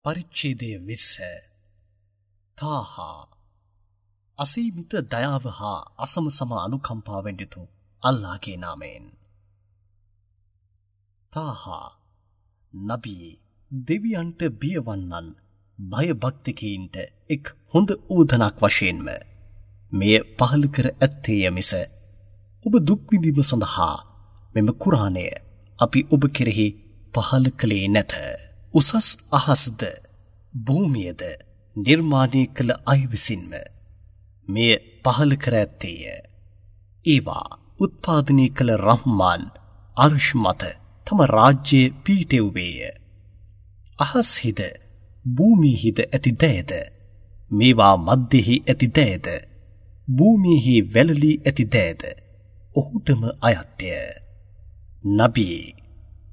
පරිච්ඡේදය 20. තාහා අසීමිත දයාව හා අසම සම අනුකම්පාවෙන් යුතු අල්ලාහගේ නාමයෙන්. තාහා නබී දෙවියන්ට බියවන්නන් භයභක්තිකයින්ට එක් හොඳ උවදනක් වශයෙන්ම මෙය පහළ කර ඇත්තේය මිස ඔබ දුක් විඳීම සඳහා මෙම කුරාණය අපි ඔබ කෙරෙහි පහළ කළේ නැත. උසස් අහස්ද භූමියද නිර්මාණය කළ අය විසින්ම මෙය පහළ කර ඇත්තේය. ඒවා උත්පාදනය කළ රහ්මාන් අර්ෂ් මත තම රාජ්‍යය පීටෙව්වේය. අහස්හිද භූමියෙහිද ඇති දෑද, මේවා මධ්‍යෙහි ඇති දෑද, භූමියෙහි වැළලී ඇති දෑද ඔහුටම අයත්ය. නබී,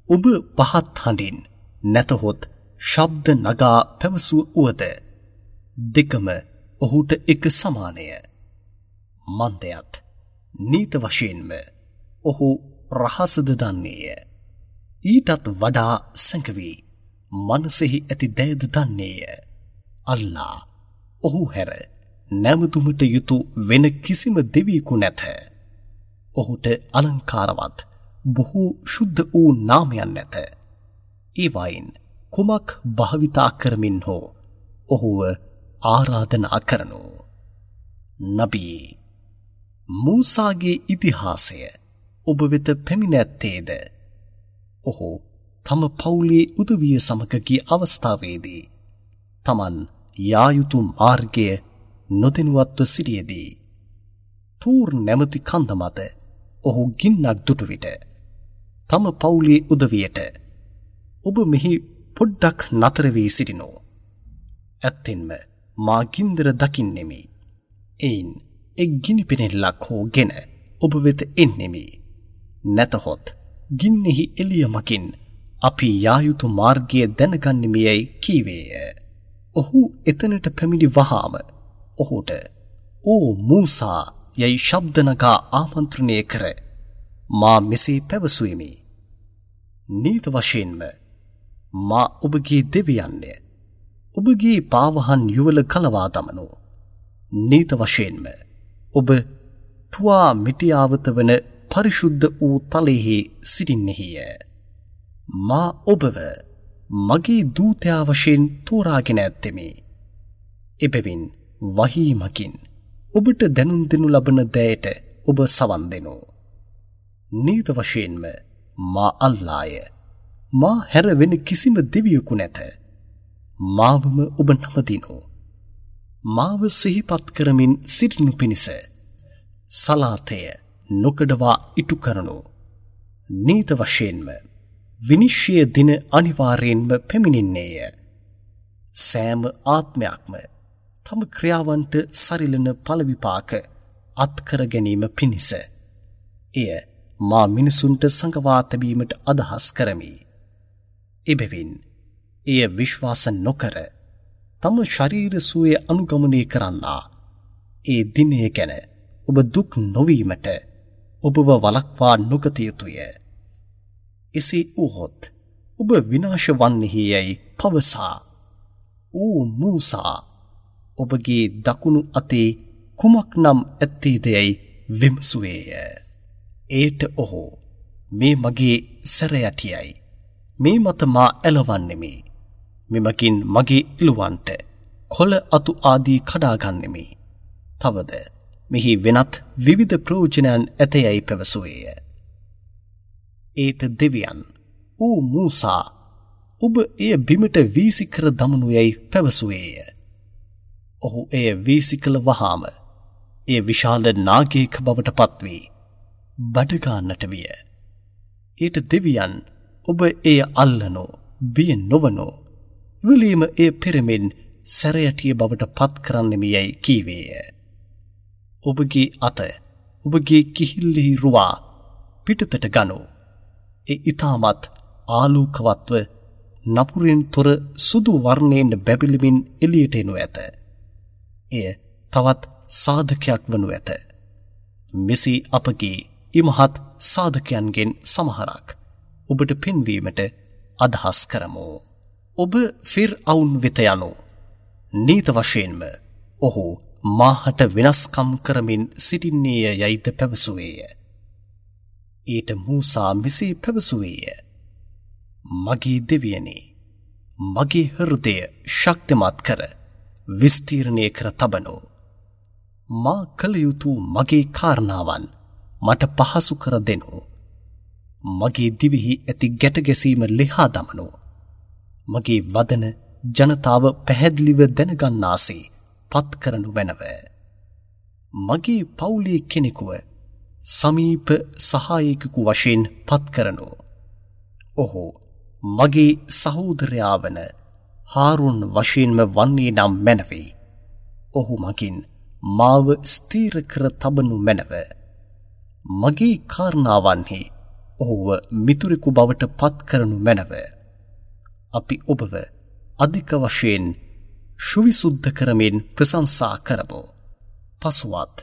ඔබ පහත් හඬින් නැතහොත් ශබ්ද නගා පැවසුව වුවද දෙකම ඔහුට එක සමානය. මන්දයත් නීත වශයෙන්ම ඔහු රහසද දන්නේය. ඊටත් වඩා සැඟවී මනසෙහි ඇති දෑද දන්නේය. අල්ලා ඔහු හැර නැමතුමට යුතු වෙන කිසිම දෙවියෙකු නැත. ඔහුට අලංකාරවත් බොහෝ ශුද්ධ වූ නාමයන් නැත. ඒවයින් කුමක් භාවිතා කරමින් හෝ ඔහුව ආරාධනා කරනු. නබී, මූසාගේ ඉතිහාසය ඔබ වෙත පැමිණ ඇත්තේද? ඔහු තම පවුලේ උදවිය සමග ගිය අවස්ථාවේදී තමන් යා යුතු මාර්ගය නොදැනුවත්ව සිටියදී තූර් නැමැති කන්ද මත ඔහු ගින්නක් දුටු විට තම පවුලේ උදවියට ඔබ මෙහි පොඩ්ඩක් නතර වී සිටිනෝ. ඇත්තෙන්ම මා ගින්දර දකින්නෙමි. එයින් එක් ගිනි පෙනෙල්ලක් හෝ ගෙන ඔබ වෙත එන්නෙමි. නැතහොත් ගින්නෙහි එළිය මගින් අපි යා යුතු මාර්ගය දැනගන්නෙමි යැයි කීවේය. ඔහු එතනට පැමිණි වහාම ඔහුට ඕ මූසා යැයි ශබ්ද නගා ආමන්ත්‍රණය කර මා මෙසේ පැවසුවෙමි. නීත වශයෙන්ම මා ඔබගේ දෙවියන්ය. ඔබගේ පාවහන් යුවල කලවා දමනු. නීත වශයෙන්ම ඔබ තුවා මිටියාවත වන පරිශුද්ධ වූ තලයෙහි සිටින්නෙහිය. මා ඔබව මගේ දූතයා වශයෙන් තෝරාගෙන ඇත්තෙමි. එබැවින් වහී මගින් ඔබට දැනුම් දෙනු ලබන දෑයට ඔබ සවන් දෙනු. නීත වශයෙන්ම මා අල්ලාය. මා හැර වෙන කිසිම දෙවියෙකු නැත. මාවම ඔබ නමදිනු. මාව සිහිපත් කරමින් සිටිනු පිණිස සලාතය නොකඩවා ඉටු කරනු. නීත වශයෙන්ම විනිශ්චය දින අනිවාර්යයෙන්ම පැමිණෙන්නේය. සෑම ආත්මයක්ම තම ක්‍රියාවන්ට සරිලන ඵල විපාක අත්කර ගැනීම පිණිස එය මා මිනිසුන්ට සඟවා තැබීමට අදහස් කරමි. එබැවින් එය විශ්වාස නොකර තම ශරීර සුවය අනුගමනය කරන්නා ඒ දිනය ගැන ඔබ දුක් නොවීමට ඔබව වළක්වා නොගත යුතුය. එසේ වුවහොත් ඔබ විනාශ වන්නෙහි යැයි පවසා ඕ මූසා, ඔබගේ දකුණු අතේ කුමක් නම් ඇත්තේද යැයි විමසුවේය. එයට ඔහු මේ මගේ සැරයටියයි. මේ මත මා ඇලවන්නෙමි. මෙමගින් මගේ ඉලුවන්ට කොළ අතු ආදී කඩාගන්නෙමි. තවද මෙහි වෙනත් විවිධ ප්‍රයෝජනයන් ඇතයයි පැවසුවේය. ඒට දෙවියන් ඕ මූසා, ඔබ එය බිමට වීසි කර දමනු යැයි පැවසුවේය. ඔහු එය වීසි කළ වහාම එය විශාල නාගයෙක් බවට පත්වී බඩගාන්නට විය. ඊට දෙවියන් ඔබ එය අල්ලනෝ, බිය නොවනෝ, එවලීම එය පෙරමින් සැරයටිය බවට පත් කරන්නෙමි යැයි කීවේය. ඔබගේ අත ඔබගේ කිහිල්ලෙහි රුවා පිටතට ගනු. ඒ ඉතාමත් ආලෝකවත්ව නපුරින් තොර සුදු වර්ණයෙන් බැබළමින් එළියට එනු ඇත. එය තවත් සාධකයක් වනු ඇත. මෙසේ අපගේ ඉමහත් සාධකයන්ගෙන් සමහරක් ඔබට පෙන්වීමට අදහස් කරමු. ඔබ ෆිර්අවුන් වෙත යනු. නීත වශයෙන්ම ඔහු මාහට වෙනස්කම් කරමින් සිටින්නේය යයිද පැවසුවේය. ඊට මූසා මෙසේ පැවසුවේය. මගේ දෙවියනි, මගේ හෘදය ශක්තිමත් කර විස්තීර්ණය කර තබනු. මා කළ යුතු මගේ කාරණාවන් මට පහසු කර දෙනු. මගේ දිවෙහි ඇති ගැට ගැසීම ලිහා දමනු. මගේ වදන ජනතාව පැහැදිලිව දැනගන්නාසේ පත් කරනු මැනව. මගේ පවුලේ කෙනෙකුව සමීප සහායකයෙකු වශයෙන් පත් කරනු. ඔහු මගේ සහෝදරයා වන හාරුන් වශයෙන්ම වන්නේ නම් මැනවේ. ඔහු මගින් මාව ස්ථීර කර තබනු මැනව. මගේ කාරණාවන්හි ඔහුව මිතුරෙකු බවට පත් කරනු මැනව. අපි ඔබව අධික වශයෙන් සුවිසුද්ධ කරමින් ප්‍රශංසා කරමු. පසුවත්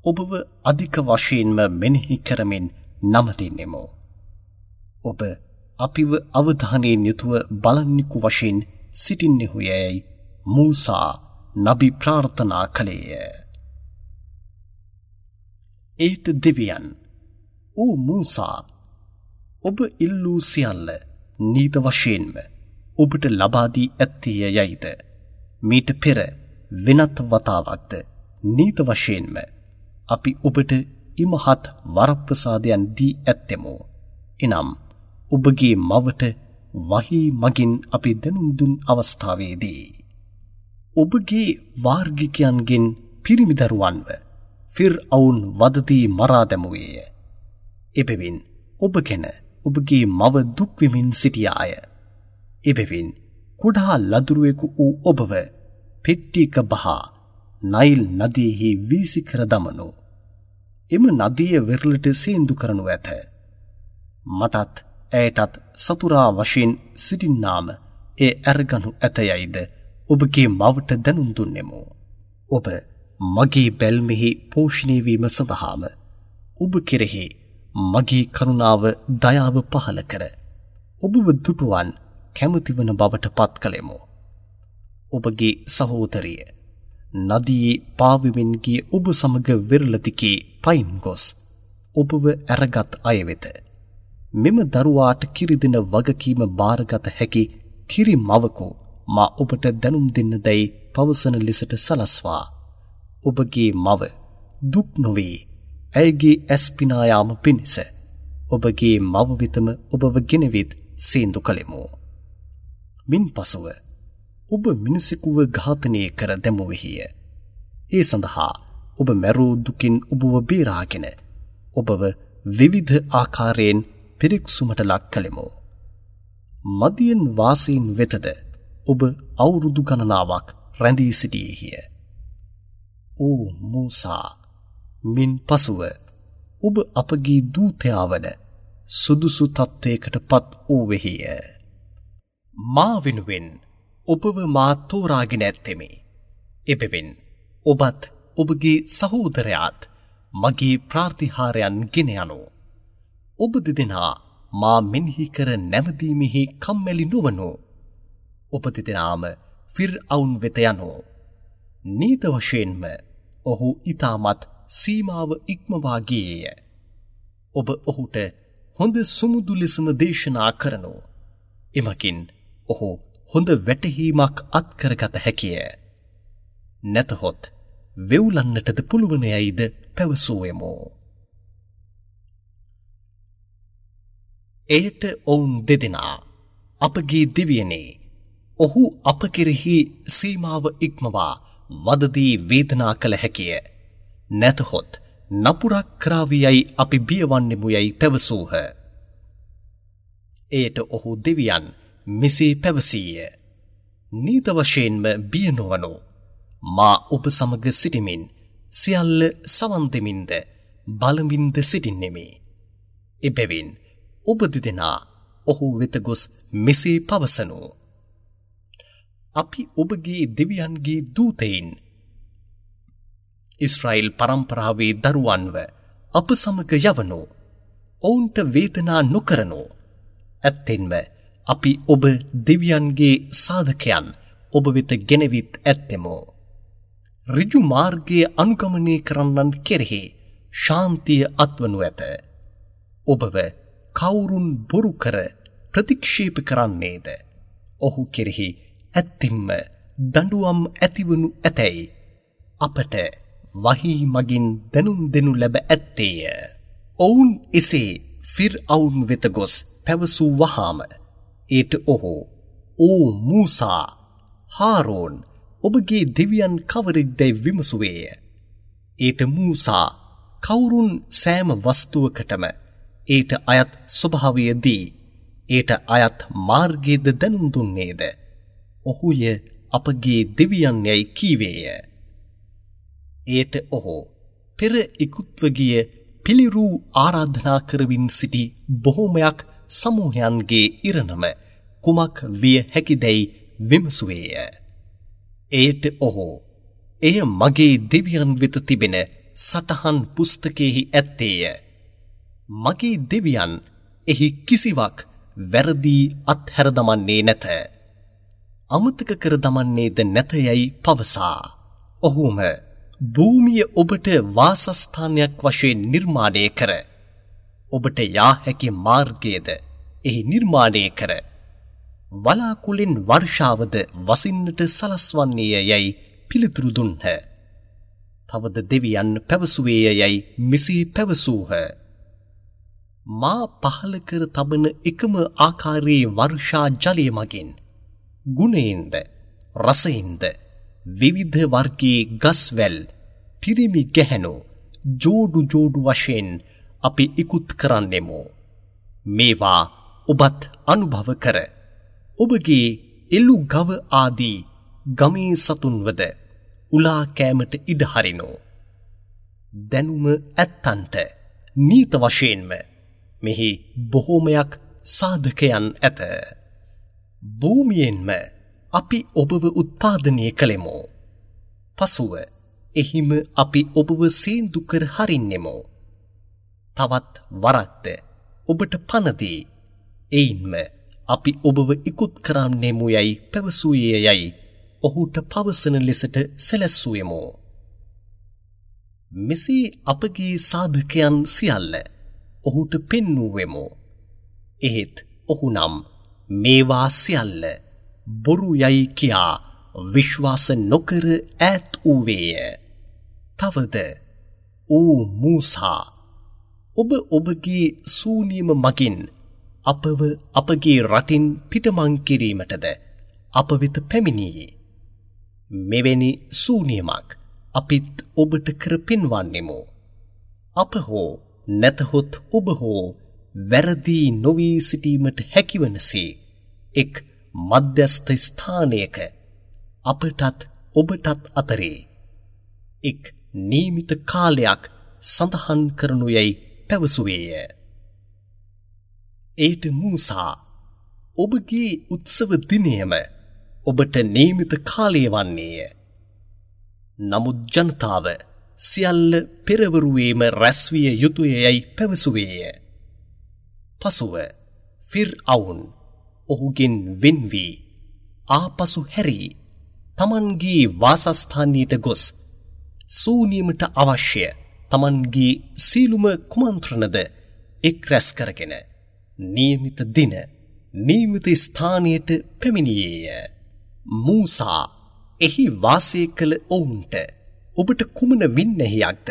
ඔබව අධික වශයෙන්ම මෙනෙහි කරමින් නමදින්නෙමු. ඔබ අපිව අවධානයෙන් යුතුව බලන්නෙකු වශයෙන් සිටින්නෙහු යැයි මූසා නබි ප්‍රාර්ථනා කළේය. ඒට දෙවියන්, ඕ මූසා, ඔබ ඉල්ලූ සියල්ල නීත වශයෙන්ම ඔබට ලබා දී ඇත්තේය යයිද මීට පෙර වෙනත් වතාවක්ද නීත වශයෙන්ම අපි ඔබට ඉමහත් වරප්‍රසාදයන් දී ඇත්තෙමු. එනම් ඔබගේ මවට වහී මගින් අපි දැනුම් දුන් අවස්ථාවේදී ඔබගේ වාර්ගිකයන්ගෙන් පිරිමි දරුවන්ව ෆිර්අවුන් වදදී මරා දැමුවේය. එබැවින් ඔබ ගැන ඔබගේ මව දුක් වෙමින් සිටියාය. එබැවින් කුඩා ලදුරුවෙකු වූ ඔබව පෙට්ටියක බහා නයිල් නදියෙහි වීසි කර දමනු. එම නදිය වෙරළට සේන්දු කරනු ඇත. මටත් ඇයටත් සතුරා වශයෙන් සිටින්නාම එය ඇරගනු ඇත යයිද ඔබගේ මවට දැනුම් දුන්නෙමු. ඔබ මගේ බැල්මෙහි පෝෂණය වීම සඳහාම ඔබ කෙරෙහි මගේ කරුණාව දයාව පහළ කර ඔබව දුටුවන් කැමතිවන බවට පත් කළෙමු. ඔබගේ සහෝදරිය නදියේ පාවෙමින් ගිය ඔබ සමග වෙරළ දිගේ පයින් ගොස් ඔබව ඇරගත් අය වෙත මෙම දරුවාට කිරි දෙන වගකීම භාරගත හැකි කිරි මවකු මා ඔබට දැනුම් දෙන්න දැයි පවසන ලෙසට සලස්වා ඔබගේ මව දුක් නොවේ ඇයගේ ඇස් පිනා යාම පිණිස ඔබගේ මව වෙතම ඔබව ගෙනවිත් සේන්දු කළෙමු. මින් පසුව ඔබ මිනිසෙකුව ඝාතනය කර දැමුවෙහිය. ඒ සඳහා ඔබ මැරූ දුකින් ඔබව බේරාගෙන ඔබව විවිධ ආකාරයෙන් පිරික්සුමට ලක් කළෙමු. මදියන් වාසීන් වෙතද ඔබ අවුරුදු ගණනාවක් රැඳී සිටියේහිය. ඕ මූසා, මින් පසුව ඔබ අපගේ දූතයා වන සුදුසු තත්ත්වයකට පත් වූවෙහිය. මා වෙනුවෙන් ඔබව මා තෝරාගෙන ඇත්තෙමි. එබැවින් ඔබත් ඔබගේ සහෝදරයාත් මගේ ප්‍රාතිහාර්යයන් ගෙන යනු. ඔබ දෙදෙනා මා මෙනෙහි කර නැමදීමෙහි කම්මැලි නොවනු. ඔබ දෙදෙනාම ෆිර්අවුන් වෙත යනු. නීත වශයෙන්ම ඔහු ඉතාමත් සීමාව ඉක්මවා ගියේය. ඔබ ඔහුට හොඳ සුමුදු ලෙසම දේශනා කරනු. එමගින් ඔහු හොඳ වැටහීමක් අත්කරගත හැකිය. නැතහොත් වෙවුලන්නටද පුළුවන් යයිද පැවසුවෙමු. එයට ඔවුන් දෙදෙනා අපගේ දෙවියනේ, ඔහු අප කෙරෙහි සීමාව ඉක්මවා වදදී වේදනා කළ හැකිය. නැතහොත් නපුරක් කරාවි යයි අපි බියවන්නෙමු යයි පැවසූහ. එයට ඔහු දෙවියන් මෙසේ පැවසීය. නීත වශයෙන්ම බිය නොවනු. මා ඔබ සමග සිටිමින් සියල්ල සවන් දෙමින්ද බලමින්ද සිටින්නෙමි. එබැවින් ඔබ දෙදෙනා ඔහු වෙත ගොස් මෙසේ පවසනු. අපි ඔබගේ දෙවියන්ගේ දූතයින් ඊශ්‍රායෙල් පරම්පරාවේ දරුවන්ව අප සමග යවනු. ඔවුන්ට වේදනා නොකරනු. ඇත්තෙන්ම අපි ඔබ දෙවියන්ගේ සාධකයන් ඔබ වෙත ගෙනවිත් ඇත්තෙමු. ඍජු මාර්ගය අනුගමනය කරන්නන් කෙරෙහි ශාන්තිය අත්වනු ඇත. ඔබව කවුරුන් බොරු කර ප්‍රතික්ෂේප කරන්නේද? ඔහු කෙරෙහි ඇත්තින්ම දඬුවම් ඇතිවනු ඇතැයි අපට වහී මගින් දැනුම් දෙනු ලැබ ඇත්තේය. ඔවුන් එසේ ෆිර්අවුන් වෙත ගොස් පැවසූ වහාම ඒට ඔහු, ඕ මූසා, හාරෝන්, ඔබගේ දෙවියන් කවරෙක්දැයි විමසුවේය. ඒට මූසා, කවුරුන් සෑම වස්තුවකටම ඒට අයත් ස්වභාවය දී ඒට අයත් මාර්ගයද දැනුම් දුන්නේද? ඔහුය අපගේ දෙවියන් යැයි කීවේය. එයට ඔහු පෙර ඉකුත්ව ගිය පිළිරූ ආරාධනා කරමින් සිටි බොහෝමයක් සමූහයන්ගේ ඉරණම කුමක් විය හැකිදැයි විමසුවේය. එයට ඔහු, එය මගේ දෙවියන් වෙත තිබෙන සටහන් පුස්තකයෙහි ඇත්තේය. මගේ දෙවියන් එහි කිසිවක් වැරදි අත්හැර දමන්නේ නැත. අමතක කර දමන්නේද නැත යැයි පවසා ඔහුම භූමිය ඔබට වාසස්ථානයක් වශයෙන් නිර්මාණය කර ඔබට යා හැකි මාර්ගයද එහි නිර්මාණය කර වලාකුළෙන් වර්ෂාවද වසින්නට සලස්වන්නේය යැයි පිළිතුරු දුන්හ. තවද දෙවියන් පැවසුවේය යැයි මෙසේ පැවසූහ. මා පහළ කර තබන එකම ආකාරයේ වර්ෂා ජලය මගින් ගුණයෙන්ද රසයෙන්ද විවිධ වර්ගයේ ගස්වැල් පිරිමි ගැහැණු ජෝඩු ජෝඩු වශයෙන් අපි ඉකුත් කරන්නෙමු. මේවා ඔබත් අනුභව කර ඔබගේ එළු ගව ආදී ගමේ සතුන්වද උලා කෑමට ඉඩ හරිනු. දැනුම ඇත්තන්ට නීත වශයෙන්ම මෙහි බොහෝමයක් සාධකයන් ඇත. භූමියෙන්ම අපි ඔබව උත්පාදනය කළෙමු. පසුව එහිම අපි ඔබව සේන්දු කර හරින්නෙමු. තවත් වරක්ද ඔබට පණ දී එයින්ම අපි ඔබව ඉකුත් කරන්නෙමු යැයි පැවසුවේ යැයි ඔහුට පවසන ලෙසට සැලැස්සුවෙමු. මෙසේ අපගේ සාධකයන් සියල්ල ඔහුට පෙන්වුවෙමු. එහෙත් ඔහු නම් මේවා සියල්ල බොරු යයි කියා විශ්වාස නොකර ඈත් වූවේය. තවද ඕ මූසා, ඔබ ඔබගේ සූනියම මගින් අපව අපගේ රටින් පිටමං කිරීමටද අප වෙත පැමිණියේ. මෙවැනි සූනියමක් අපිත් ඔබට කර පෙන්වන්නෙමු. අප හෝ නැතහොත් ඔබ හෝ වැරදි නොවී සිටීමට හැකිවනසේ එක් මධ්‍යස්ථ ස්ථානයක අපටත් ඔබටත් අතරේ එක් නියමිත කාලයක් සඳහන් කරනු යැයි පැවසුවේය. ඒට මූසා, ඔබගේ උත්සව දිනයම ඔබට නියමිත කාලය වන්නේය. නමුත් ජනතාව සියල්ල පෙරවරුවේම රැස්විය යුතුය යැයි පැවසුවේය. පසුව ෆිර්අවුන් ඔහුගෙන් වෙන් වී ආපසු හැරී තමන්ගේ වාසස්ථානයට ගොස් සූනියමට අවශ්‍ය තමන්ගේ සීලුම කුමන්ත්‍රණද එක් රැස් කරගෙන නියමිත දින නියමිත ස්ථානයට පැමිණියේය. මූසා එහි වාසය කළ ඔවුන්ට ඔබට කුමන වින්නැහියක්ද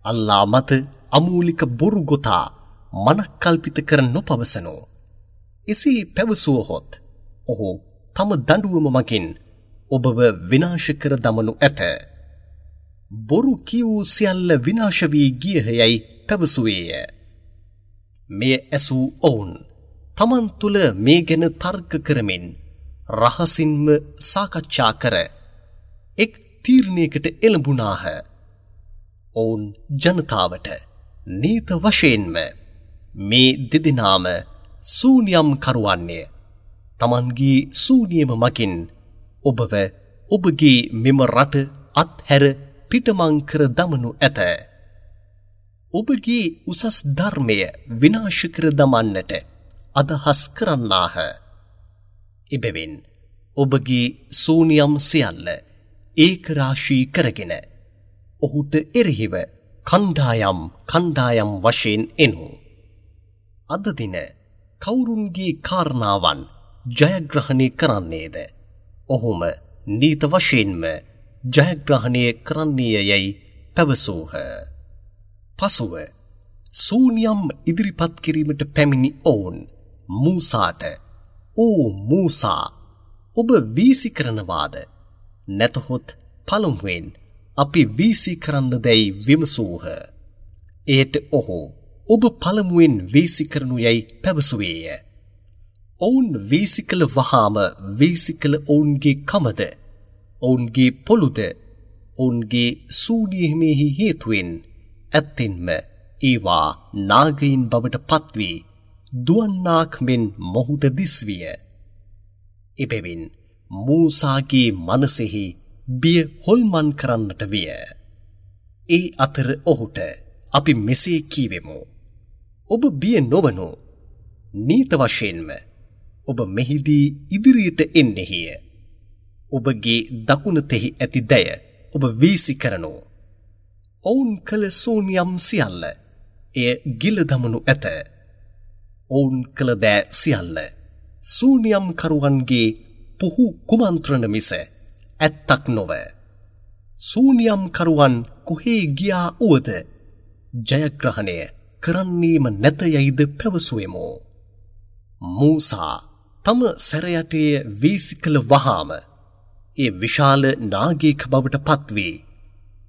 අල්ලා මත අමූලික බොරු ගොතා මනක්කල්පිත කර නොපවසනෝ. එසේ පැවසුවහොත් ඔහු තම දඬුවම මගින් ඔබව විනාශ කර දමනු ඇත. බොරු කියූ සියල්ල විනාශ වී ගියහ යැයි පැවසුවේය. මෙය ඇසූ ඔවුන් තමන් තුළ මේ ගැන තර්ක කරමින් රහසින්ම සාකච්ඡා කර එක් තීරණයකට එළඹුණාහ. ඔවුන් ජනතාවට නීත වශයෙන්ම මේ දෙදෙනාම සූනියම් කරුවන්නේය. තමන්ගේ සූනියම මගින් ඔබව ඔබගේ මෙම රට අත්හැර පිටමං කර දමනු ඇත. ඔබගේ උසස් ධර්මය විනාශ කර දමන්නට අදහස් කරන්නාහ. එබැවින් ඔබගේ සූනියම් සියල්ල ඒකරාශී කරගෙන ඔහුට එරෙහිව කණ්ඩායම් කණ්ඩායම් වශයෙන් එනු. අද දින කවුරුන්ගේ කාරණාවන් ජයග්‍රහණය කරන්නේද? ඔහුම නීත වශයෙන්ම ජයග්‍රහණය කරන්නේය යැයි පැවසූහ. පසුව සූනියම් ඉදිරිපත් කිරීමට පැමිණි ඔවුන් මූසාට, "ඕ මූසා, ඔබ වීසි කරනවාද? නැතහොත් පළමුවෙන් අපි වීසි කරන්න දැයි විමසූහ." එයට ඔහු, "ඔබ පළමුවෙන් වීසි කරනු යැයි පැවසුවේය." ඔවුන් වීසි කළ වහාම වීසි කළ ඔවුන්ගේ කමද, ඔවුන්ගේ පොළුද, ඔවුන්ගේ සූනියමෙහි හේතුවෙන් ඇත්තෙන්ම ඒවා නාගයින් බවට පත්වී දුවන්නාක් මෙන් මොහුට දිස්විය. එබැවින් මූසාගේ මනසෙහි බිය හොල්මන් කරන්නට විය. ඒ අතර ඔහුට අපි මෙසේ කීවෙමු. ඔබ බිය නොවනු. නීත වශයෙන්ම ඔබ මෙහිදී ඉදිරියට එන්නෙහිය. ඔබගේ දකුණතෙහි ඇති දැය ඔබ වීසි කරනු. ඔවුන් කළ සූනියම් සියල්ල එය ගිල දමනු ඇත. ඔවුන් කළ දෑ සියල්ල සූනියම් කරුවන්ගේ පුහු කුමන්ත්‍රණ මිස ඇත්තක් නොව. සූනියම් කරුවන් කොහේ ගියා වුවද ජයග්‍රහණය කරන්නේම නැත යයිද පැවසුවෙමු. මූසා තම සැරයටය වීසි කළ වහාම ඒ විශාල නාගයෙක් බවට පත්වී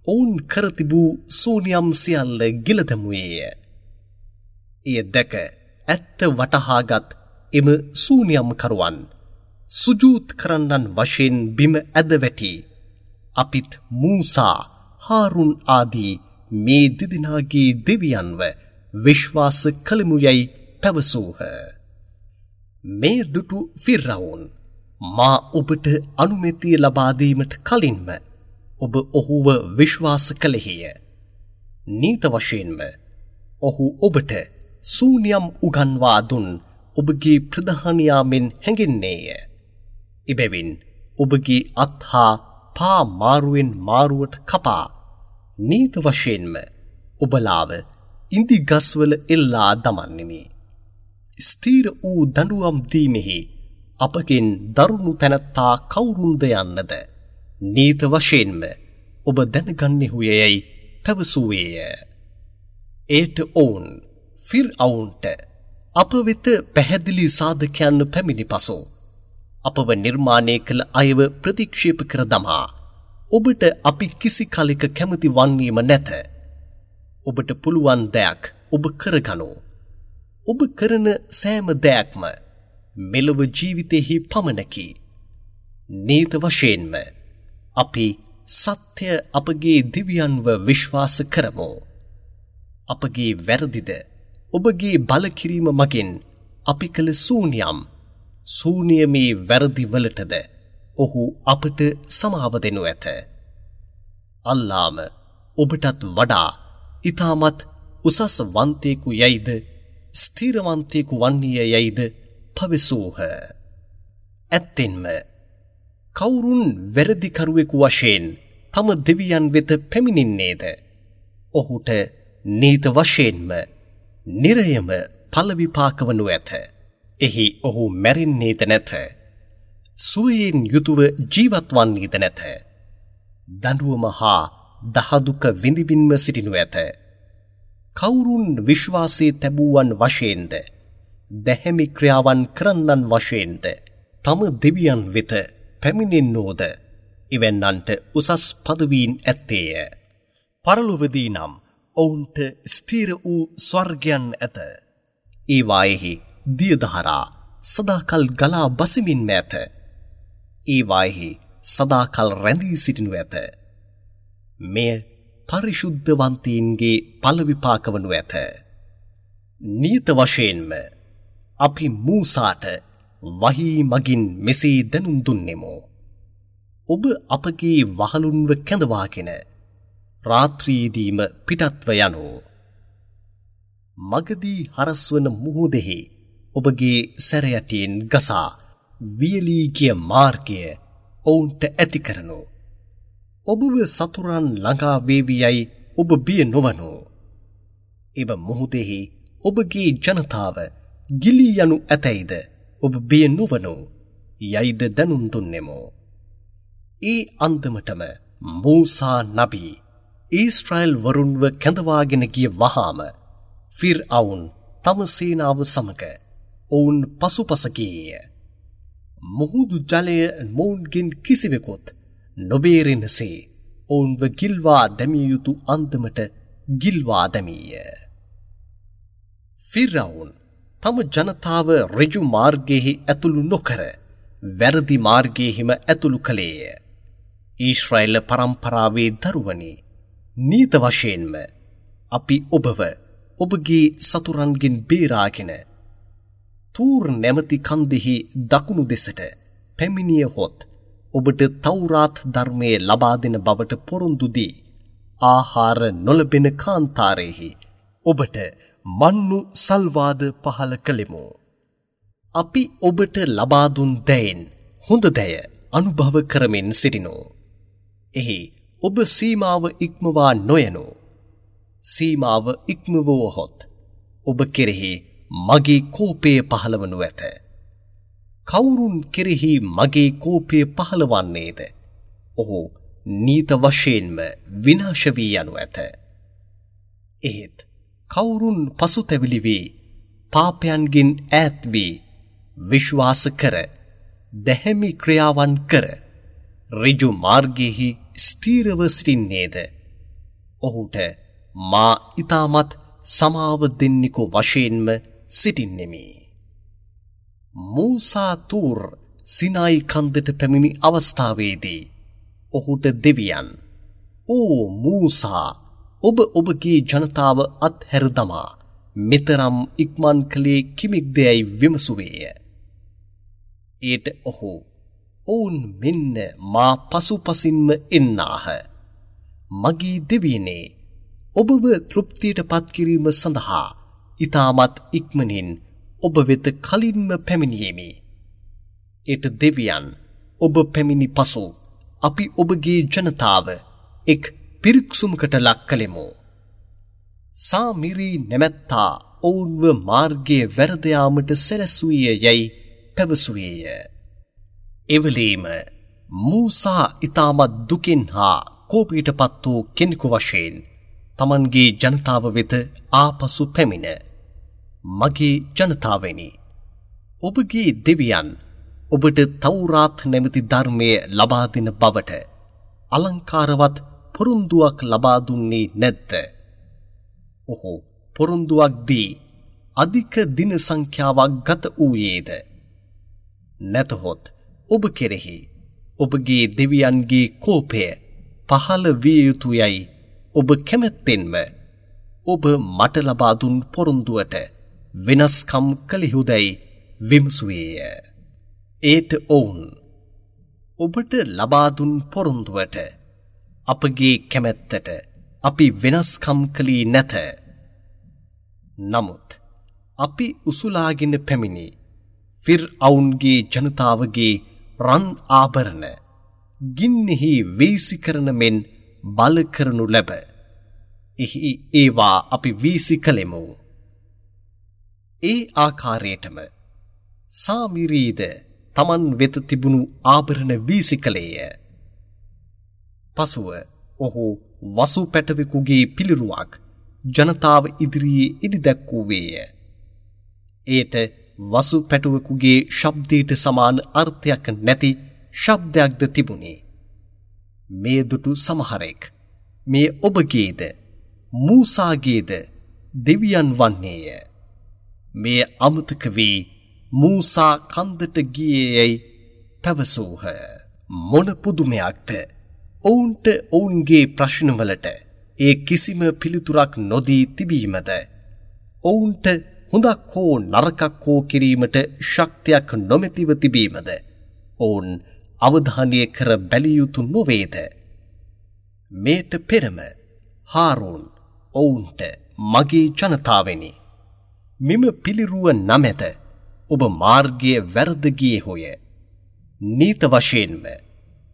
ඔවුන් කර තිබූ සූනියම් සියල්ල ගිල දැමුවේය. එය දැක ඇත්ත වටහාගත් එම සූනියම් කරුවන් සුජූත් කරන්නන් වශයෙන් බිම ඇද වැටි අපිත් මූසා, හාරුන් ආදී මේ දෙදෙනාගේ දෙවියන්ව විශ්වාස කළෙමු යැයි පැවසූහ. මේ දුටු ෆිරවුන්, මා ඔබට අනුමැතිය ලබා දීමට කලින්ම ඔබ ඔහුව විශ්වාස කළෙහිය. නීත වශයෙන්ම ඔහු ඔබට සූනියම් උගන්වා දුන් ඔබගේ ප්‍රධානියා මෙන් හැඟෙන්නේය. එබැවින් ඔබගේ අත් හා පා මාරුවෙන් මාරුවට කපා නීත වශයෙන්ම ඔබලාව ඉඳි ගස්වල එල්ලා දමන්නෙමි. ස්ථීර වූ දඬුවම් දීමෙහි අපගෙන් දරුණු තැනැත්තා කවුරුන්ද යන්නද නීත වශයෙන්ම ඔබ දැනගන්නෙහු යැයි පැවසුවේය. එයට ඔවුන් ෆිර්අවුන්ට අප වෙත පැහැදිලි සාධකයන් පැමිණි පසු අපව නිර්මාණය කළ අයව ප්‍රතික්ෂේප කර දමා ඔබට අපි කිසි කලෙක කැමති වන්නේම නැත. ඔබට පුළුවන් දෙයක් ඔබ කරගනු. ඔබ කරන සෑම දෙයක්ම මෙලොව ජීවිතයෙහි පමණකි. නීත වශයෙන්ම අපි සත්‍ය අපගේ දෙවියන්ව විශ්වාස කරමු. අපගේ වැරදිද ඔබගේ බලකිරීම මගින් අපි කළ සූනියම් සූනියමේ වැරදි වලටද ඔහු අපට සමාව දෙනු ඇත. අල්ලාම ඔබටත් වඩා ඉතාමත් උසස් වන්තයෙකු යයිද ස්ථිරවන්තයෙකු වන්නේය යයිද පවසූහ. ඇත්තෙන්ම කවුරුන් වැරදිකරුවෙකු වශයෙන් තම දෙවියන් වෙත පැමිණෙන්නේද ඔහුට නීත වශයෙන්ම නිරයම ඵල විපාක වනු ඇත. එහි ඔහු මැරෙන්නේද නැත. සුවයෙන් යුතුව ජීවත් වන්නේද නැත. දඬුවම හා දහදුක විඳිමින්ම සිටිනු ඇත. කවුරුන් විශ්වාසයේ තැබූවන් වශයෙන්ද දැහැමි ක්‍රියාවන් කරන්නන් වශයෙන්ද තම දෙවියන් වෙත පැමිණෙන්නෝද එවැන්නන්ට උසස් පදවීන් ඇත්තේය. පරලොවදී නම් ඔවුන්ට ස්ථිර වූ ස්වර්ගයන් ඇත. ඒවායෙහි දියදහරා සදාකල් ගලා බසිමින්ම ඇත. ඒවායෙහි සදාකල් රැඳී සිටිනු ඇත. මෙය පරිශුද්ධවන්තීන්ගේ ඵල විපාක වනු ඇත. නියත වශයෙන්ම අපි මූසාට වහී මගින් මෙසේ දැනුම් දුන්නෙමු. ඔබ අපගේ වහලුන්ව කැඳවාගෙන රාත්‍රියේදීම පිටත්ව යනු. මගදී හරස්වන මුහුදෙහි ඔබගේ සැරයටියෙන් ගසා වියලී ගිය මාර්ගය ඔවුන්ට ඇති කරනු. ඔබව සතුරන් ළඟා වේවි යයි ඔබ බිය නොවනු. එම මුහුදෙහි ඔබගේ ජනතාව ගිලී යනු ඇතැයිද ඔබ බිය නොවනු යයිද දැනුම් දුන්නෙමු. ඒ අන්දමටම මූසා නබී ඊශ්‍රායල් වරුන්ව කැඳවාගෙන ගිය වහාම ෆිර්අවුන් තම සේනාව සමග ඔවුන් පසුපස ගියේය. මුහුදු ජලය මොවුන්ගෙන් කිසිවෙකුත් නොබේරෙනසේ ඔවුන්ව ගිල්වා දැමිය යුතු අන්දමට ගිල්වා දැමීය. ෆිර්අවුන් තම ජනතාව ඍජු මාර්ගයෙහි ඇතුළු නොකර වැරදි මාර්ගයෙහිම ඇතුළු කළේය. ඊශ්‍රායල් පරම්පරාවේ දරුවනි, නීත වශයෙන්ම අපි ඔබව ඔබගේ සතුරන්ගෙන් බේරාගෙන තූර් නැමැති කන්දෙහි දකුණු දෙසට පැමිණියහොත් ඔබට තවුරාත් ධර්මය ලබා දෙන බවට පොරොන්දු දී ආහාර නොලැබෙන කාන්තාරයෙහි ඔබට මන්නු සල්වාද පහළ කළෙමු. අපි ඔබට ලබා දුන් දෑයෙන් හොඳ දෑය අනුභව කරමින් සිටිනු. එහි ඔබ සීමාව ඉක්මවා නොයනු. සීමාව ඉක්මවුවහොත් ඔබ කෙරෙහි මගේ කෝපය පහළවනු ඇත. කවුරුන් කෙරෙහි මගේ කෝපය පහළවන්නේද? ඔහු නීත වශයෙන්ම විනාශ වී යනු ඇත. එහෙත් කවුරුන් පසුතැවිලි වී පාපයන්ගෙන් ඈත් වී විශ්වාස කර දැහැමි ක්‍රියාවන් කර ඍජු මාර්ගයෙහි ස්ථීරව සිටින්නේද? ඔහුට මා ඉතාමත් සමාව දෙන්නෙකු වශයෙන්ම සිටින්නෙමි. මූසා තූර් සිනායි කන්දට පැමිණි අවස්ථාවේදී ඔහුට දෙවියන්, ඕ මූසා, ඔබ ඔබගේ ජනතාව අත්හැර දමා මෙතරම් ඉක්මන් කළේ කිමෙක්දැයි විමසුවේය. එයට ඔහු, ඔවුන් මෙන්න මා පසුපසින්ම එන්නාහ. මගේ දෙවියනේ, ඔබව තෘප්තියට පත්කිරීම සඳහා ඉතාමත් ඉක්මනින් ඔබ වෙත කලින්ම පැමිණියෙමි. එයට දෙවියන්, ඔබ පැමිණි පසු අපි ඔබගේ ජනතාව එක් පිරික්සුමකට ලක් කළෙමු. සාමිරි නැමැත්තා ඔවුන්ව මාර්ගයේ වැරද යාමට සැලැස්සුවේ යැයි පැවසුවේය. එවලේම මූසා ඉතාමත් දුකෙන් හා කෝපයට පත් වූ කෙනෙකු වශයෙන් තමන්ගේ ජනතාව වෙත ආපසු පැමිණ, මගේ ජනතාවනි, ඔබගේ දෙවියන් ඔබට තවුරාත් නැමැති ධර්මය ලබා දෙන බවට අලංකාරවත් පොරොන්දුවක් ලබා දුන්නේ නැද්ද? ඔහු පොරොන්දුවක් දී අධික දින සංඛ්‍යාවක් ගත වූයේද? නැතහොත් ඔබ කෙරෙහි ඔබගේ දෙවියන්ගේ කෝපය පහළ විය යුතුයයි ඔබ කැමැත්තෙන්ම ඔබ මට ලබා දුන් පොරොන්දුවට වෙනස්කම් කළෙහුදැයි විමසුවේය. ඒට ඔවුන්, ඔබට ලබා දුන් පොරොන්දුවට අපගේ කැමැත්තට අපි වෙනස්කම් කළේ නැත. නමුත් අපි උසුලාගෙන පැමිණි ෆිර්අවුන්ගේ ජනතාවගේ රන් ආභරණ ගින්නෙහි වීසි කරන මෙන් බල කරනු ලැබ. එහි ඒවා අපි වීසි කළෙමු. ඒ ආකාරයටම සාමිරීද තමන් වෙත තිබුණු ආභරණ වීසි කළේය. පසුව ඔහු වසු පැටවෙකුගේ පිළිරුවක් ජනතාව ඉදිරියේ ඉදි දැක්වූවේය. එයට වසු පැටවෙකුගේ ශබ්දයට සමාන අර්ථයක් නැති ශබ්දයක්ද තිබුණේ. මේ දුටු සමහරෙක් මේ ඔබගේද මූසාගේද දෙවියන් වන්නේය. මේ අමතක වී මූසා කන්දට ගියේ යැයි පැවසූහ. මොන පුදුමයක්ද! ඔවුන්ට ඔවුන්ගේ ප්‍රශ්නවලට ඒ කිසිම පිළිතුරක් නොදී තිබීමද, ඔවුන්ට හොඳක් හෝ නරකක් හෝ කිරීමට ශක්තියක් නොමැතිව තිබීමද ඔවුන් අවධානය කර බැලිය යුතු නොවේද? මේට පෙරම හාරූන් ඔවුන්ට, මගේ ජනතාවෙනි, මෙම පිළිරුව නමැත ඔබ මාර්ගය වැරද ගියේහුය. නීත වශයෙන්ම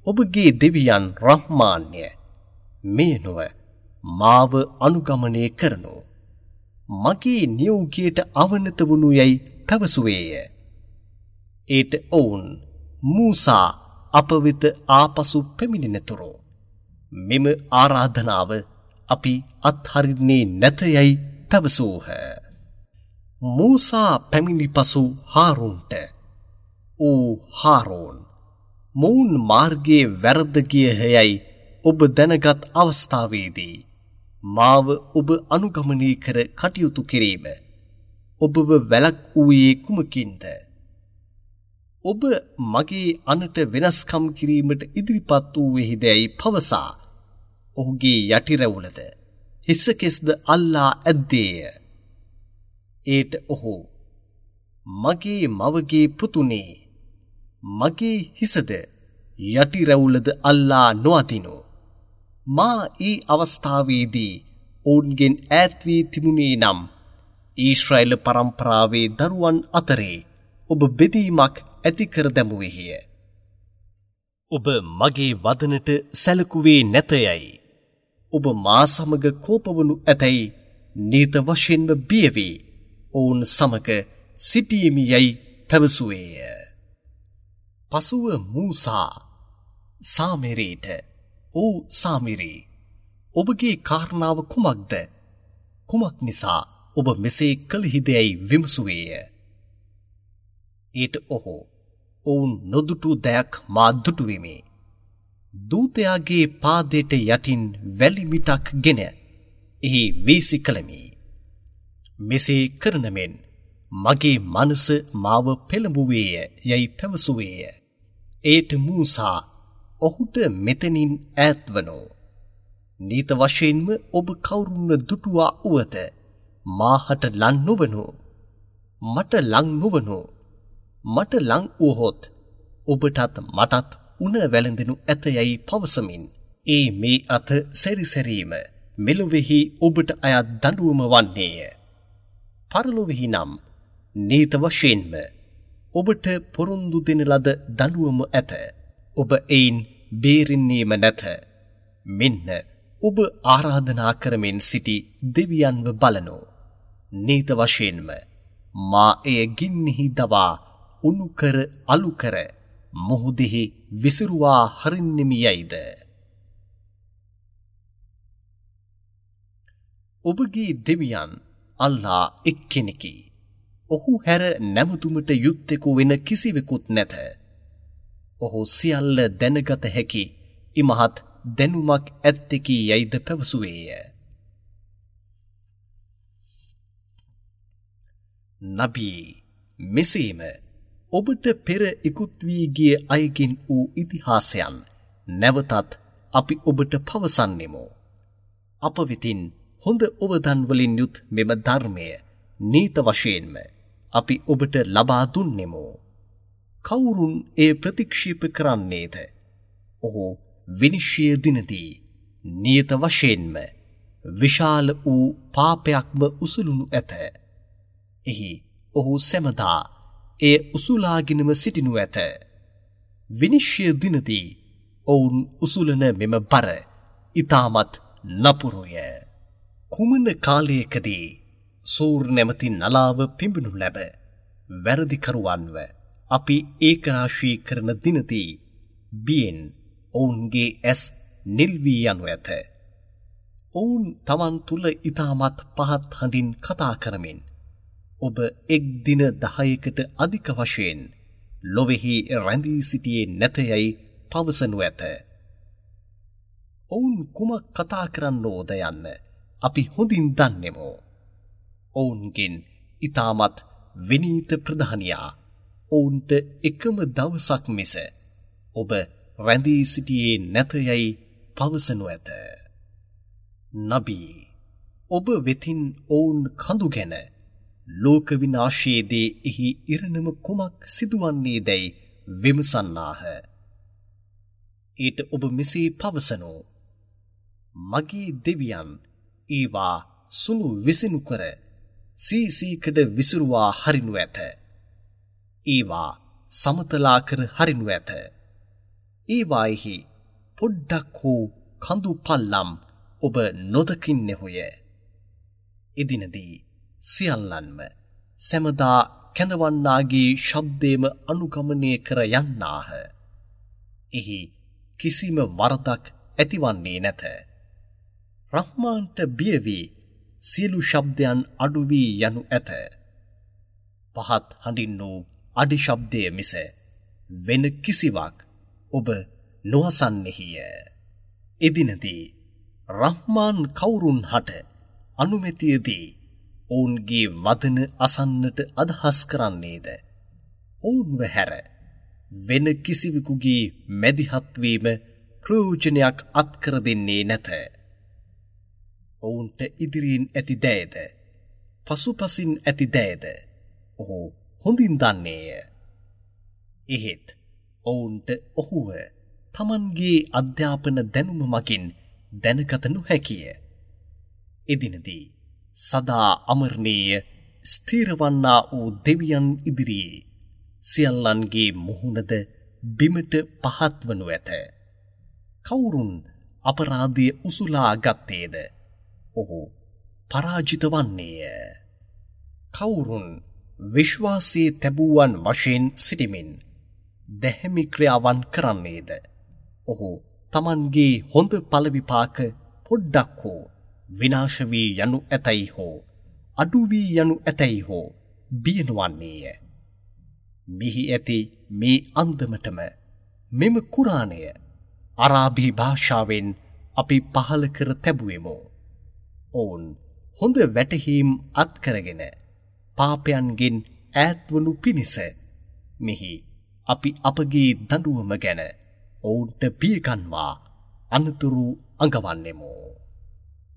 ඔබගේ දෙවියන් රහ්මාන්ය, මේ නොව මාව අනුගමනය කරනු. මගේ නියෝගයට අවනත වනු යැයි පැවසුවේය. ඒට ඔවුන් මූසා අප වෙත ආපසු පැමිණෙනතුරු මෙම ආරාධනාව අපි අත්හරින්නේ නැත යැයි පැවසූහ. මූසා පැමිණි පසු හාරූන්ට, "ඕ හාරූන්, මොවුන් මාර්ගයේ වැරද්ද ගියහ යැයි ඔබ දැනගත් අවස්ථාවේදී මාව ඔබ අනුගමනය කර කටයුතු කිරීම ඔබව වැළැක්වූයේ කුමකින්ද? ඔබ මගේ අනට වෙනස්කම් කිරීමට ඉදිරිපත් වූයෙහිදැයි පවසා ඔහුගේ යටි රැවුලද හිසකෙස්ද අල්ලා ඇද්දේය. ඒට ඔහු, මගේ මවගේ පුතුනේ, මගේ හිසද යටි රැවුලද අල්ලා නොඅදිනු. මා ඒ අවස්ථාවේදී ඔවුන්ගෙන් ඈත් වී තිබුණේ නම් ඊශ්‍රායල පරම්පරාවේ දරුවන් අතරේ ඔබ බෙදීමක් ඇති කර දැමුවේහිය. ඔබ මගේ වදනට සැලකුවේ නැතයයි. ඔබ මා සමග කෝපවනු ඇතැයි නීත වශයෙන්ම බිය වී ඔවුන් සමග සිටීමි යැයි පැවසුවේය. පසුව මූසා සාමිරීට, "ඕ සාමිරී, ඔබගේ කාරණාව කුමක්ද? කුමක් නිසා ඔබ මෙසේ කළහිදැයි විමසුවේය." ඊට ඔහු, "ඔවුන් නොදුටු දයක් මා දුටුවෙමි. දූතයාගේ පාදයට යටින් වැලි මිටක් ගෙන එහි වීසි කළෙමි. මෙසේ කරන මෙන් මගේ මනස මාව පෙළඹුවේය යැයි පැවසුවේය." ඒට මූසා ඔහුට මෙතනින් ඈත්වනෝ. නීත වශයෙන්ම ඔබ කවුරුන්ව දුටුවා වුවද මාහට ලං නොවනු. මට ලං නොවනු. මට ලං වුවහොත් ඔබටත් මටත් උණ වැළඳෙනු ඇත යැයි පවසමින් ඒ මේ අත සැරිසැරීම මෙලොවෙහි ඔබට අයත් දඬුවම වන්නේය. පරලොවෙහි නම් නීත වශයෙන්ම ඔබට පොරොන්දු දෙන ලද දඬුවම ඇත. ඔබ එයින් බේරෙන්නේම නැත. මෙන්න ඔබ ආරාධනා කරමින් සිටි දෙවියන්ව බලනු. නීත වශයෙන්ම මා එය ගින්නෙහි දවා උණු කර අලු කර මුහුදෙහි විසිරුවා හරින්නෙමි යයිද? ඔබගේ දෙවියන් අල්ලා එක්කෙනෙකි. ඔහු හැර නැමතුමට යුත්තෙකු වෙන කිසිවෙකුත් නැත. ඔහු සියල්ල දැනගත හැකි ඉමහත් දැනුමක් ඇත්තෙකි යයිද පැවසුවේය. නබී, මෙසේම ඔබට පෙර ඉකුත් වී ගිය අයගෙන් වූ ඉතිහාසයන් නැවතත් අපි ඔබට පවසන්නෙමු. අප වෙතින් හොඳ ඔවදන් වලින් යුත් මෙම ධර්මය නීත වශයෙන්ම අපි ඔබට ලබා දුන්නෙමු. කවුරුන් එය ප්‍රතික්ෂේප කරන්නේද? ඔහු විනිශ්චය දිනදී නියත වශයෙන්ම විශාල වූ පාපයක්ම උසුලනු ඇත. එහි ඔහු සැමදා එය උසුලාගෙනම සිටිනු ඇත. විනිශ්චය දිනදී ඔවුන් උසුලන මෙම බර ඉතාමත් නපුරුය. කුමන කාලයකදී සූර් නැමැති නලාව පිඹිනු ලැබ වැරදිකරුවන්ව අපි ඒකරාශී කරන දිනදී බියෙන් ඔවුන්ගේ ඇස් නිල් වී යනු ඇත. ඔවුන් තමන් තුළ ඉතාමත් පහත් හඬින් කතා කරමින් ඔබ එක් දින 10කට අධික වශයෙන් ලොවෙහි රැඳී සිටියේ නැත යැයි පවසනු ඇත. ඔවුන් කුමක් කතා කරන්නෝද යන්න අපි හොඳින් දන්නෙමු. ඔවුන්ගෙන් ඉතාමත් විනීත ප්‍රධානියා ඔවුන්ට එකම දවසක් මිස ඔබ රැඳී සිටියේ නැත යැයි පවසනු ඇත. නබී, ඔබ වෙතින් ඔවුන් කඳු ගැන ලෝක විනාශයේදී එහි ඉරණම කුමක් සිදුවන්නේ දැයි විමසන්නාහ. ඊට ඔබ මෙසේ පවසනු. මගේ දෙවියන් ඒවා සුණු විසිනු කර සීසීකඩ විසිරුවා හරිනු ඇත. ඒවා සමතලා කර හරිනු ඇත. ඒවායෙහි පොඩ්ඩක් හෝ කඳු පල්ලම් ඔබ නොදකින්නෙහුය. එදිනදී සියල්ලන්ම සැමදා කැඳවන්නාගේ ශබ්දයම අනුගමනය කර යන්නාහ. එහි කිසිම වරදක් ඇතිවන්නේ නැත. රහ්මාන්ට බිය වී සියලු ශබ්දයන් අඩු වී යනු ඇත. පහත් හඬින් වූ අඩි ශබ්දය මිස වෙන කිසිවක් ඔබ නොඅසන්නෙහිය. එදිනදී රහ්මාන් කවුරුන් හට අනුමැතියදී ඔවුන්ගේ වදන අසන්නට අදහස් කරන්නේද? ඔවුන්ව හැර වෙන කිසිවෙකුගේ මැදිහත් වීම ප්‍රයෝජනයක් අත්කර දෙන්නේ නැත. ඔවුන්ට ඉදිරියෙන් ඇති දෑද පසුපසින් ඇති දෑද ඔහු හොඳින් දන්නේය. එහෙත් ඔවුන්ට ඔහුව තමන්ගේ අධ්‍යාපන දැනුම මගින් දැනගත නොහැකිය. එදිනදී සදා අමරණීය ස්ථිරවන්නා වූ දෙවියන් ඉදිරියේ සියල්ලන්ගේ මුහුණද බිමට පහත් වනු ඇත. කවුරුන් අපරාධය උසුලා ගත්තේද ඔහු පරාජිත වන්නේය. කවුරුන් විශ්වාසයේ තැබූවන් වශයෙන් සිටිමින් දැහැමි ක්‍රියාවන් කරන්නේද ඔහු තමන්ගේ හොඳ ඵල විපාක පොඩ්ඩක් හෝ විනාශ වී යනු ඇතැයි හෝ අඩු වී යනු ඇතැයි හෝ බිය නොවන්නේය. මෙහි ඇති මේ අන්දමටම මෙම කුරාණය අරාබි භාෂාවෙන් අපි පහළ කර තැබුවෙමු. ඔවුන් හොඳ වැටහීම් අත්කරගෙන පාපයන්ගෙන් ඈත්වනු පිණිස මෙහි අපි අපගේ දඬුවම ගැන ඔවුන්ට බියගන්වා අනතුරු අඟවන්නෙමු.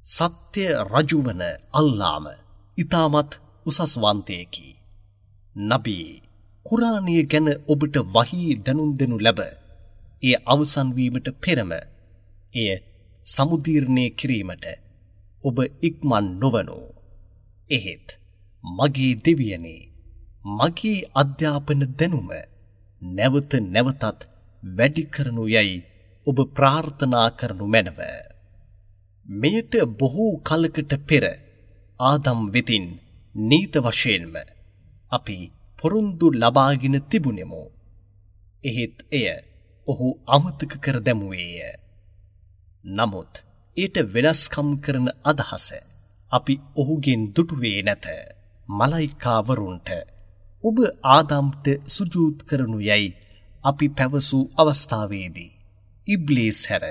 සත්‍ය රජුවන අල්ලාම ඉතාමත් උසස්වන්තයෙකි. නබී කුරාණය ගැන ඔබට වහී දැනුම් දෙනු ලැබ එය අවසන් වීමට පෙරම එය සමුදීර්ණය කිරීමට ඔබ ඉක්මන් නොවනු. එහෙත් මගේ දෙවියනේ, මගේ අධ්‍යාපන දැනුම නැවත නැවතත් වැඩි කරනු යැයි ඔබ ප්‍රාර්ථනා කරනු මැනව. මෙයට බොහෝ කලකට පෙර ආදම් වෙතින් නීත වශයෙන්ම අපි පොරොන්දු ලබාගෙන තිබුණෙමු. එහෙත් එය ඔහු අමතක කර දැමුවේය. නමුත් ඊට වෙනස්කම් කරන අදහස අපි ඔහුගෙන් දුටුවේ නැත. මලයිකාවරුන්ට ඔබ ආදම්ට සුජූද් කරනු යැයි අපි පැවසූ අවස්ථාවේදී ඉබ්ලීස් හැර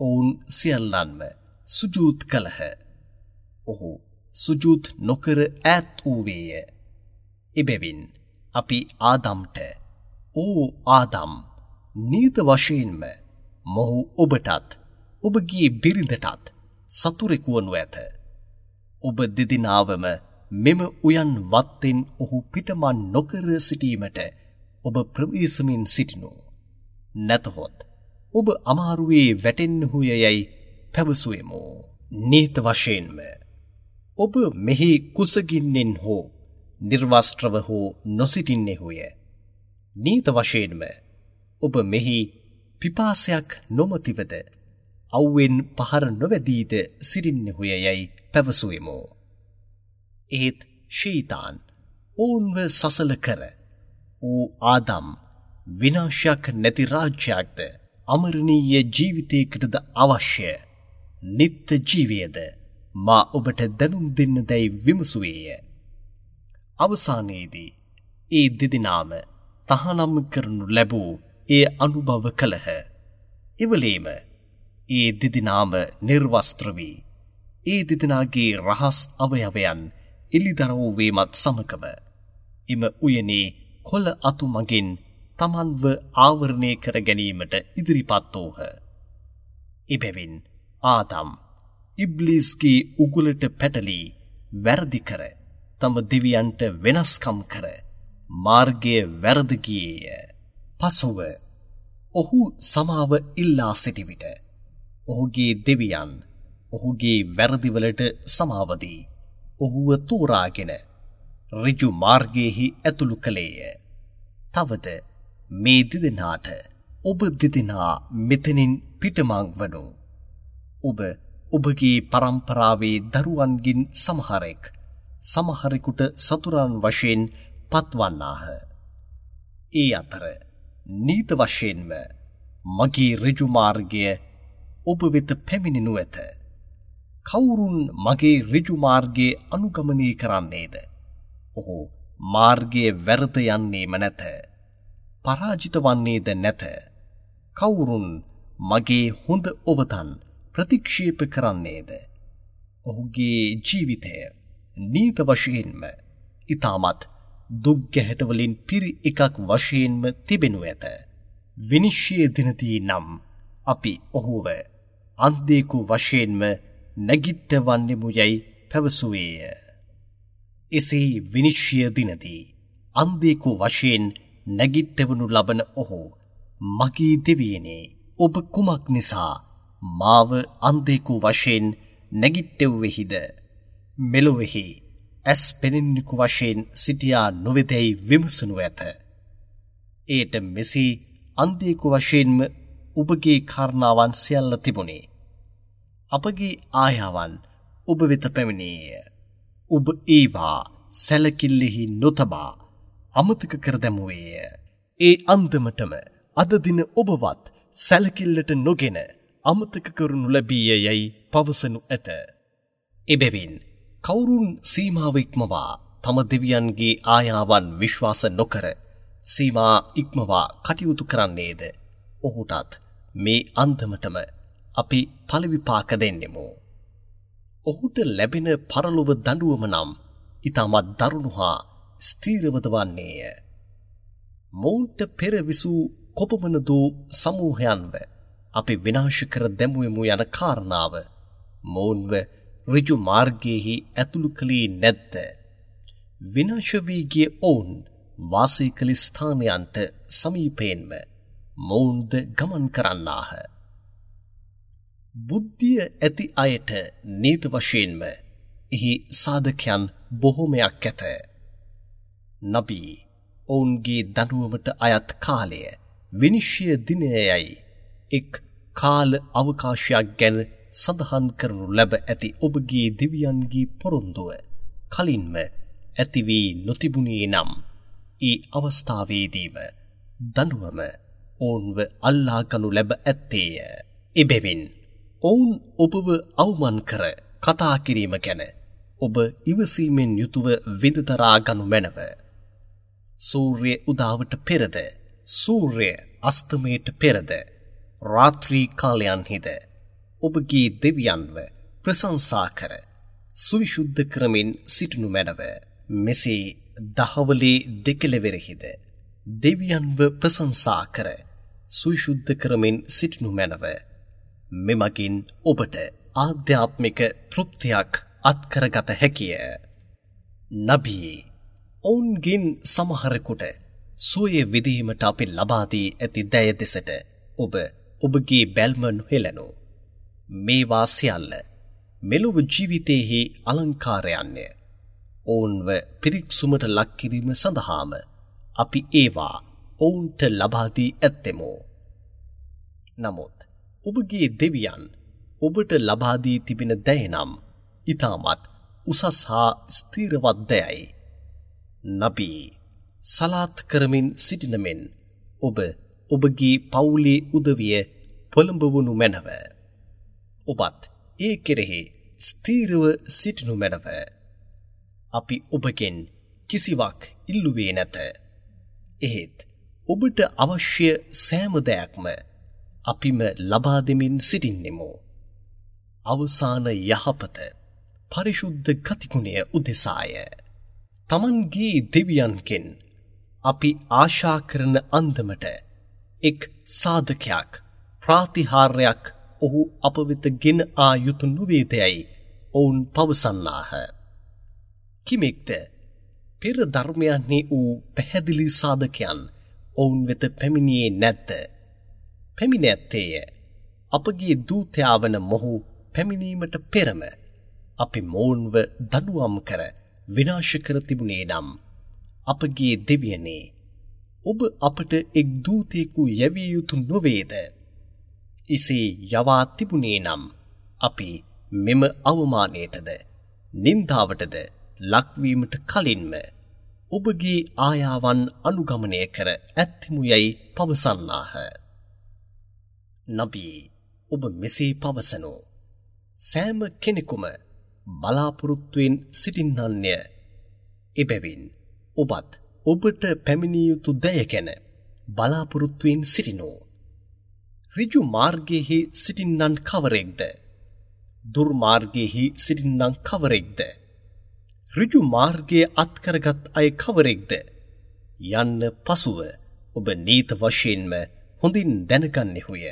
ඔවුන් සියල්ලන්ම සුජූද් කළහ. ඔහු සුජූද් නොකර ඈත් වූවේය. එබැවින් අපි ආදම්ට, ඕ ආදම්, නීත වශයෙන්ම මොහු ඔබටත් ඔබගේ බිරිඳටත් සතුරෙකු වනු ඇත. ඔබ දෙදෙනාවම මෙම උයන් වත්තෙන් ඔහු පිටමන් නොකර සිටීමට ඔබ ප්‍රවේශමින් සිටිනු. නැතහොත් ඔබ අමාරුවේ වැටෙන්නහුය යැයි පැවසුවෙමු. නීත වශයෙන්ම ඔබ මෙහි කුසගින්නෙන් හෝ නිර්වස්ත්‍රව හෝ නොසිටින්නෙහුය. නීත වශයෙන්ම ඔබ මෙහි පිපාසයක් නොමතිවද අව්වෙන් පහර නොවැදීද සිටින්නෙහුය යැයි පැවසුවෙමු. එහෙත් ෂෙයිතාන් ඔවුන්ව සසල කර ඌ ආදම් විනාශයක් නැති රාජ්‍යයක්ද අමරණීය ජීවිතයකටද අවශ්‍ය නිත්‍ය ජීවයද මා ඔබට දැනුම් දෙන්න දැයි විමසුවේය. අවසානයේදී ඒ දෙදෙනාම තහනම් කරනු ලැබූ එය අනුභව කළහ. එවලේම ඒ දෙදෙනාම නිර්වස්ත්‍ර වී ඒ දෙදෙනාගේ රහස් අවයවයන් එළිදරව් වීමත් සමගම එම උයනේ කොළ අතු මගින් තමන්ව ආවරණය කර ගැනීමට ඉදිරිපත් වූහ. එබැවින් ආදම් ඉබ්ලිස්ගේ උගුලට පැටලී වැරදි කර තම දෙවියන්ට වෙනස්කම් කර මාර්ගය වැරද ගියේය. පසුව ඔහු සමාව ඉල්ලා සිටි විට ඔහුගේ දෙවියන් ඔහුගේ වැරදිවලට සමාව දී ඔහුව තෝරාගෙන ඍජු මාර්ගයෙහි ඇතුළු කළේය. තවද මේ දෙදෙනාට ඔබ දෙදෙනා මෙතනින් පිටමං වනු. ඔබ ඔබගේ පරම්පරාවේ දරුවන්ගෙන් සමහරෙක් සමහරෙකුට සතුරන් වශයෙන් පත්වන්නාහ. ඒ අතර නීත වශයෙන්ම මගේ ඍජු මාර්ගය ඔබ වෙත පැමිණෙනු ඇත. කවුරුන් මගේ ඍජු මාර්ගය අනුගමනය කරන්නේද? ඔහු මාර්ගයේ වැරද යන්නේම නැත. පරාජිත වන්නේද නැත. කවුරුන් මගේ හොඳ ඔවතන් ප්‍රතික්ෂේප කරන්නේද? ඔහුගේ ජීවිතය නීත වශයෙන්ම ඉතාමත් දුක් ගැහැටවලින් පිරි එකක් වශයෙන්ම තිබෙනු ඇත. විනිශ්චය දිනදී නම් අපි ඔහුව අන්ධයෙකු වශයෙන්ම නැගිට්ටවන්නෙමු යැයි පැවසුවේය. එසේ විනිශ්චය දිනදී අන්ධයෙකු වශයෙන් නැගිට්ටවනු ලබන ඔහු මගේ දෙවියනේ, ඔබ කුමක් නිසා මාව අන්ධයෙකු වශයෙන් නැගිට්ටෙව්වෙහිද? මෙලොවෙහි ඇස් පෙනෙන්නෙකු වශයෙන් සිටියා නොවේදැයි විමසනු ඇත. එයට මෙසේ අන්ධයෙකු වශයෙන්ම ඔබගේ කාරණාවන් සියල්ල තිබුණේ. අපගේ ආයාවන් ඔබ වෙත පැමිණියේය. ඔබ ඒවා සැලකිල්ලෙහි නොතබා අමතක කර දැමුවේය. ඒ අන්දමටම අද දින ඔබවත් සැලකිල්ලට නොගෙන අමතක කරනු ලැබීය යැයි පවසනු ඇත. එබැවින් කවුරුන් සීමාව ඉක්මවා තම දෙවියන්ගේ ආයාවන් විශ්වාස නොකර සීමා ඉක්මවා කටයුතු කරන්නේද? ඔහුටත් මේ අන්දමටම අපි ඵල විපාක දෙන්නෙමු. ඔහුට ලැබෙන පරලොව දඬුවම නම් ඉතාමත් දරුණු හා ස්ථීරවද වන්නේය. මොවුන්ට පෙර විසූ කොපමණ දෝ සමූහයන්ව අපි විනාශ කර දැමුවෙමු යන කාරණාව මොවුන්ව ඍජු මාර්ගයෙහි ඇතුළු කළේ නැද්ද? විනාශ වී ගිය ඔවුන් වාසය කළ ස්ථානයන්ට සමීපයෙන්ම මොවුන්ද ගමන් කරන්නාහ. බුද්ධිය ඇති අයට නීත වශයෙන්ම එහි සාධකයන් බොහොමයක් ඇත. නබී ඔවුන්ගේ දඬුවමට අයත් කාලය විනිශ්චය දිනයයි එක් කාල අවකාශයක් ගැන සඳහන් කරනු ලැබ ඇති ඔබගේ දෙවියන්ගේ පොරොන්දුව කලින්ම ඇති වී නොතිබුණේ නම් ඒ අවස්ථාවේදීම දඬුවම ඔවුන්ව අල්ලා ගනු ලැබ ඇත්තේය. එබැවින් ඔවුන් ඔබව අවමන් කර කතා කිරීම ගැන ඔබ ඉවසීමෙන් යුතුව විඳදරා ගනු මැනව. සූර්ය උදාවට පෙරද, සූර්ය අස්තමයට පෙරද, රාත්‍රී කාලයන්හිද ඔබගේ දෙවියන්ව ප්‍රශංසා කර සුවිශුද්ධ කරමින් සිටිනු මැනව. මෙසේ දහවලේ දෙකෙලවරෙහිද දෙවියන්ව ප්‍රශංසා කර සුවිශුද්ධ කරමින් සිටිනු මැනව. මෙමගින් ඔබට ආධ්‍යාත්මික තෘප්තියක් අත්කරගත හැකිය. නබී ඔවුන්ගෙන් සමහරෙකුට සුවය විඳීමට අපි ලබා දී ඇති දය දෙසට ඔබ ඔබගේ බැල්ම නොහෙළනු. මේවා සියල්ල මෙලොව ජීවිතයෙහි අලංකාරයන්ය. ඔවුන්ව පිරික්සුමට ලක් කිරීම සඳහාම අපි ඒවා ඔවුන්ට ලබා දී ඇත්තෙමු. නමුත් ඔබගේ දෙවියන් ඔබට ලබා දී තිබෙන දය නම් ඉතාමත් උසස් හා ස්ථිරවත් දයයි. නබී සලාත් කරමින් සිටින මෙන් ඔබ ඔබගේ පවුලේ උදවිය පොළඹවනු මැනව. ඔබත් ඒ කෙරෙහි ස්ථීරව සිටිනු මැනව. අපි ඔබගෙන් කිසිවක් ඉල්ලුවේ නැත. එහෙත් ඔබට අවශ්‍ය සෑම දෙයක්ම අපිම ලබා දෙමින් සිටින්නෙමු. අවසාන යහපත පරිශුද්ධ ගතිගුණය උදෙසාය. තමන්ගේ දෙවියන්ගෙන් අපි ආශා කරන අන්දමට එක් සාධකයක් ප්‍රාතිහාර්යයක් ඔහු අප වෙත ගෙන ආ යුතු නොවේදැයි ඔවුන් පවසන්නාහ. කිමෙක්ද පෙර ධර්මයන්හි වූ පැහැදිලි සාධකයන් ඔවුන් වෙත පැමිණියේ නැද්ද? පැමිණ ඇත්තේය. අපගේ දූතයා වන මොහු පැමිණීමට පෙරම අපි මොවුන්ව දඬුවම් කර විනාශ කර තිබුණේ නම් අපගේ දෙවියනේ, ඔබ අපට එක් දූතයෙකු යැවිය යුතු නොවේද? එසේ යවා තිබුණේ නම් අපි මෙම අවමානයටද නින්දාවටද ලක්වීමට කලින්ම ඔබගේ ආයාවන් අනුගමනය කර ඇත්තෙමු යැයි පවසන්නාහ. නබී, ඔබ මෙසේ පවසනු. සෑම කෙනෙකුම බලාපොරොත්තුවෙන් සිටින්නන්ය. එබැවින් ඔබත් ඔබට පැමිණිය යුතු දය ගැන බලාපොරොත්තුවෙන් සිටිනු. ඍජු මාර්ගයෙහි සිටින්නන් කවරෙක්ද? දුර්මාර්ගයෙහි සිටින්නන් කවරෙක්ද? ඍජු මාර්ගය අත්කරගත් අය කවරෙක්ද යන්න පසුව ඔබ නීත වශයෙන්ම හොඳින් දැනගන්නෙහුය.